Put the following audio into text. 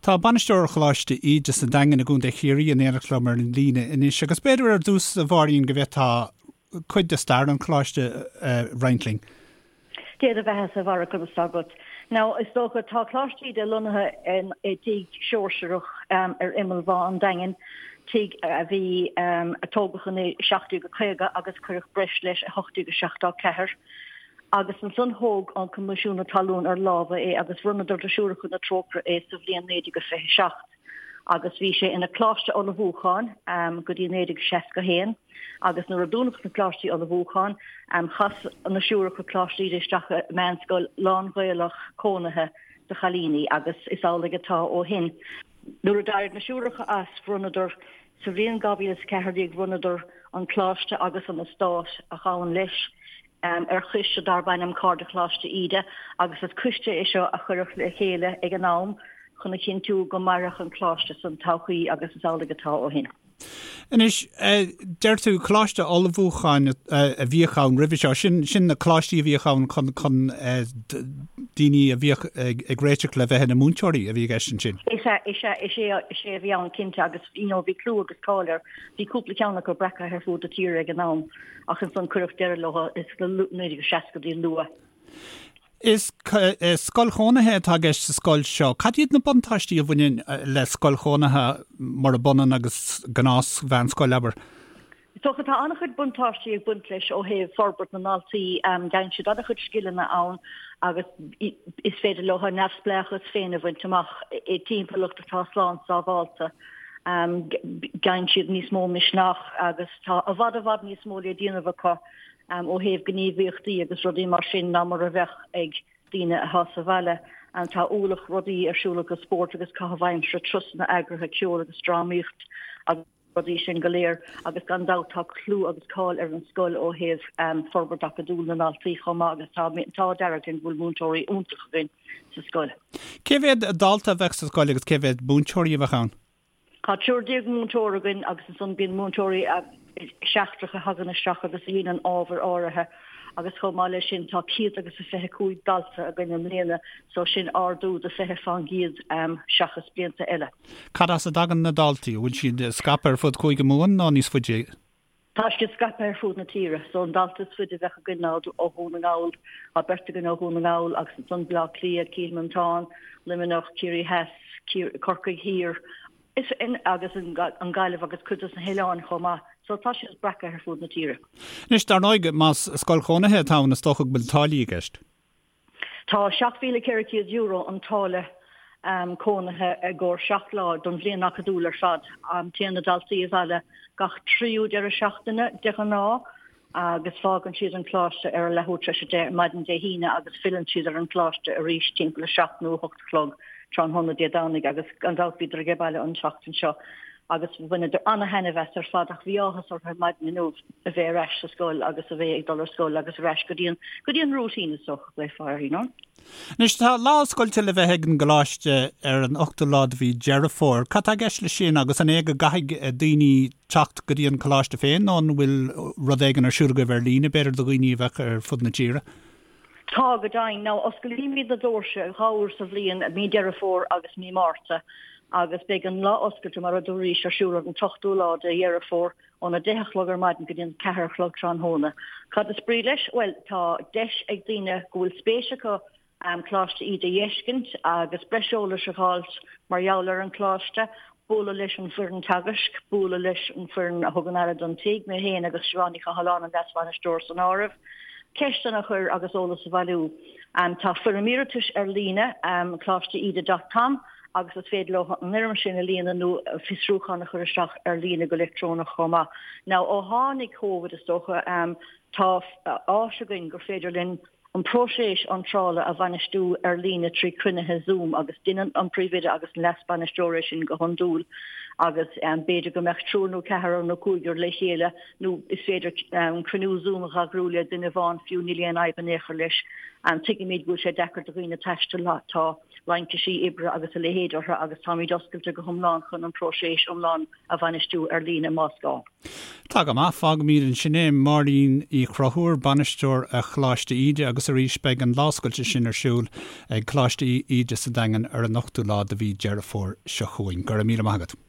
Tá bainisteoir Choláiste Íde sa Daingean i gContae Chiarraí in éineacht liom ar an líne anois agus b'fhéidir ar dtús, a Mháirín, go bhféadfá cuid de stair an choláiste a roinnt linn. Dé do bheatha-sa, a Bharra, conas tá agat? Now, is dócha, tá Coláiste Íde lonnaithe i dtigh Seoirseach ar imeall Bhá an Daingin, tigh a bhí, a tógadh in 1750 agus cuireadh breis leis i 1874. Agus ansan thóg an Coimisiún Talún ar lámha é agus bhronnadar do Siúracha na Trócaire é sa bhliain 1927. Agus bhí sé ina Coláiste Ullmhúcháin go dtí 1961 agus nuair a dúnadh na Coláistí Ullmhúcháin chas na Siúracha Coláiste Íde isteach i meánscoil lán-Ghaelach cónaithe do chailíní agus is amhlaidh atá ó shin. Nuair a d'éirigh na Siúracha as bhronnadar Sa bhliain 2014 bhronnadar an coláiste agus an eastát a ghabhann leis ar choiste darb ainm Cairde Choláiste Íde agus is coiste é seo a cuireadh le chéile ag an am chun a chinntiú go mairfeadh an coláiste san todhchaí agus is amhlaidh atá ó shin. Anois, deir tú coláiste ullmhúcháin a bhíodh ann roimhe seo, sin sin na coláistí a bhíodh ann chun chun daoine a bhíodh ag réiteach le bheith ina múinteoirí a bhí i gceist ansin. Is ea, is ea, is é, is é a bhí ann cinnte agus you know bhí clú agus cáil air. Bhí cúpla ceann acu breactha ar fud na tíre ag an am ach ansan cuireadh deireadh leo sna 1960idí luath. Is scoil chónaithe atá i gceist sa scoil seo. Cad iad na buntáistí a bhaineann le scoil chónaithe murab ionann agus gnáth-mheánscoil, abair? Is dócha tá an-chuid buntáistí ag baint leis ó thaobh forbairt na ndaltaí. Faigheann siad an-chuid scileanna ann agus is féidir leo a neamhspleáchas féin a bhaint amach i dtimpeallacht atá slán sábhálta. Faigheann siad níos mó misneach agus tá i bhfad i bhfad níos mó le déanamh acu ó thaobh gníomhaíochtaí agus rudaí mar sin ná mar a bheadh ag daoine atá sa bhaile. Tá ualach rudaí ar siúl acu, spórt agus caitheamh aimsire, turasanna eagraithe, ceol agus drámaíocht agus. rudaí sin go léir agus gan dabht tá clú agus cáil ar an scoil ó thaobh forbairt acadúil na ndaltaí chomh maith agus tá an t-ádh dearg linn go bhfuil múinteoirí iontacha againn sa scoil. Cé mhéad dalta a bheadh sa scoil agus cé mhéad múinteoirí a bheadh ann? Tá 13 múinteoir againn agus ansan bíonn múinteoirí seachtracha a thagann isteach agus a dhéanann ábhair áirithe agus chomh maith leis sin tá 125 dalta againn i mbliana so sin ardú de 20 fán gcéad seachas blianta eile. Cad as a dtagann na daltaí? An bhfuil siad scaipthe ar fud Chúige Mumhan nó níos faide? Tá siad scaipthe ar fud na tíre. So an dalta is faide a bheadh againn ná ó Dhún na nGall, tá beirt againn ó Dhún na nGall agus ansan Baile Átha Cliath, Cill Mhantáin, Luimneach, Ciarraí Theas, Corcaigh Thiar is agus an Ghaillimh agus cuid dos na hoileáin chomh maith. So tá siad breactha ar fud na tíre. Anois, dar ndóigh, más scoil chónaithe atá ann is dócha go bhfuil táillí i gceist. Tá €7,400 an táille cónaithe i gcomhair 7 lá don bhliain acadúil ar fad. Téann na daltaí abhaile gach tríú deireadh seachtaine de ghnáth agus fágann siad an coláiste ar a leathuair tar éis 10 ar maidin Dé hAoine agus filleann siad ar an gcoláiste arís timpeall 7 nó 8 a chlog tráthnóna Dé Domhnaigh agus gan dabht bhíodar ag baile an tseachtain seo agus bhaineadar ana-thaitneamh as ar fad ach bhí áthas orthu ar maidin inniu a bheith ar ais sa scoil agus a bheith ag dul ar scoil agus ar ais go dtí an go dtí an routine is dócha go bhféadfá you know. Anois tá lá oscailte le bheith ag an gcoláiste ar an ochtú lá de mhí Deireadh Fómhair. Cad tá i gceist leis sin agus an é go gcaithfidh daoine teacht go dtí an coláiste féin nó an bhfuil rud éigin ar siúl agaibh ar líne b'fhéidir do dhaoine a bheadh ar fud na tíre? Tá, go deimhin. Now, osclaímid na doirse dhá uair sa bhliain, mí Deireadh Fómhair agus mí Márta, agus beidh an lá oscailte, mar a dúraís, ar siúl ar an t-ochtú lá de Dheireadh Fómhair, óna deich a chlog ar maidin go dtí an ceathair a chlog tráthnóna. Cad is brí leis? Bhuel, tá deis ag daoine go bhfuil spéis acu Coláiste Íde a fheiscint agus breis eolais a dh'fháilt mar gheall ar an choláiste, bualadh leis an bhfoireann teagaisc, bualadh leis an bhfoireann a thugann aire don tigh, mé féin agus Siobhán Ní Chathalláin, an Leas-Bhainisteoir san áireamh, ceisteanna a chur agus eolas a bhailiú. Tá foirm iarratais ar líne, coláisteíde dot com, agus is féidir leo an fhoirm sin a líonadh nó fiosrúchán a chur isteach ar líne go leictreonach chomh maith. Now ó tháinig Covid is dócha, tá áis againn gur féidir linn an próiseas iontrála a bhainistiú ar líne trí chruinnithe Zoom agus déanann an príomhoide agus an leas-bainisteoir é sin go hiondúil agus b'fhéidir go mbeadh triúr nó ceathrar nó cúigear le chéile nó is féidir cruinniú Zoom a eagrú le duine amháin fiú, níl aon fhadhb in aon chor leis. Tuigimid go bhfuil sé deacair do dhaoine taisteal, tá. Laincisí oibre agus a leithéid orthu agus táimid oscailte go hiomlán chun an próiseas iomlán a bhainistiú ar líne más gá. Tá go maith, fágfaimid ansin é. Máirín Uí Chonchúir, Bainisteoir Choláiste Íde agus arís beidh an lá oscailte sin ar siúl ag Coláiste Íde sa Daingean ar an ochtú lá de mhí Deireadh Fómhair seo chugainn. Go raibh míle maith agat.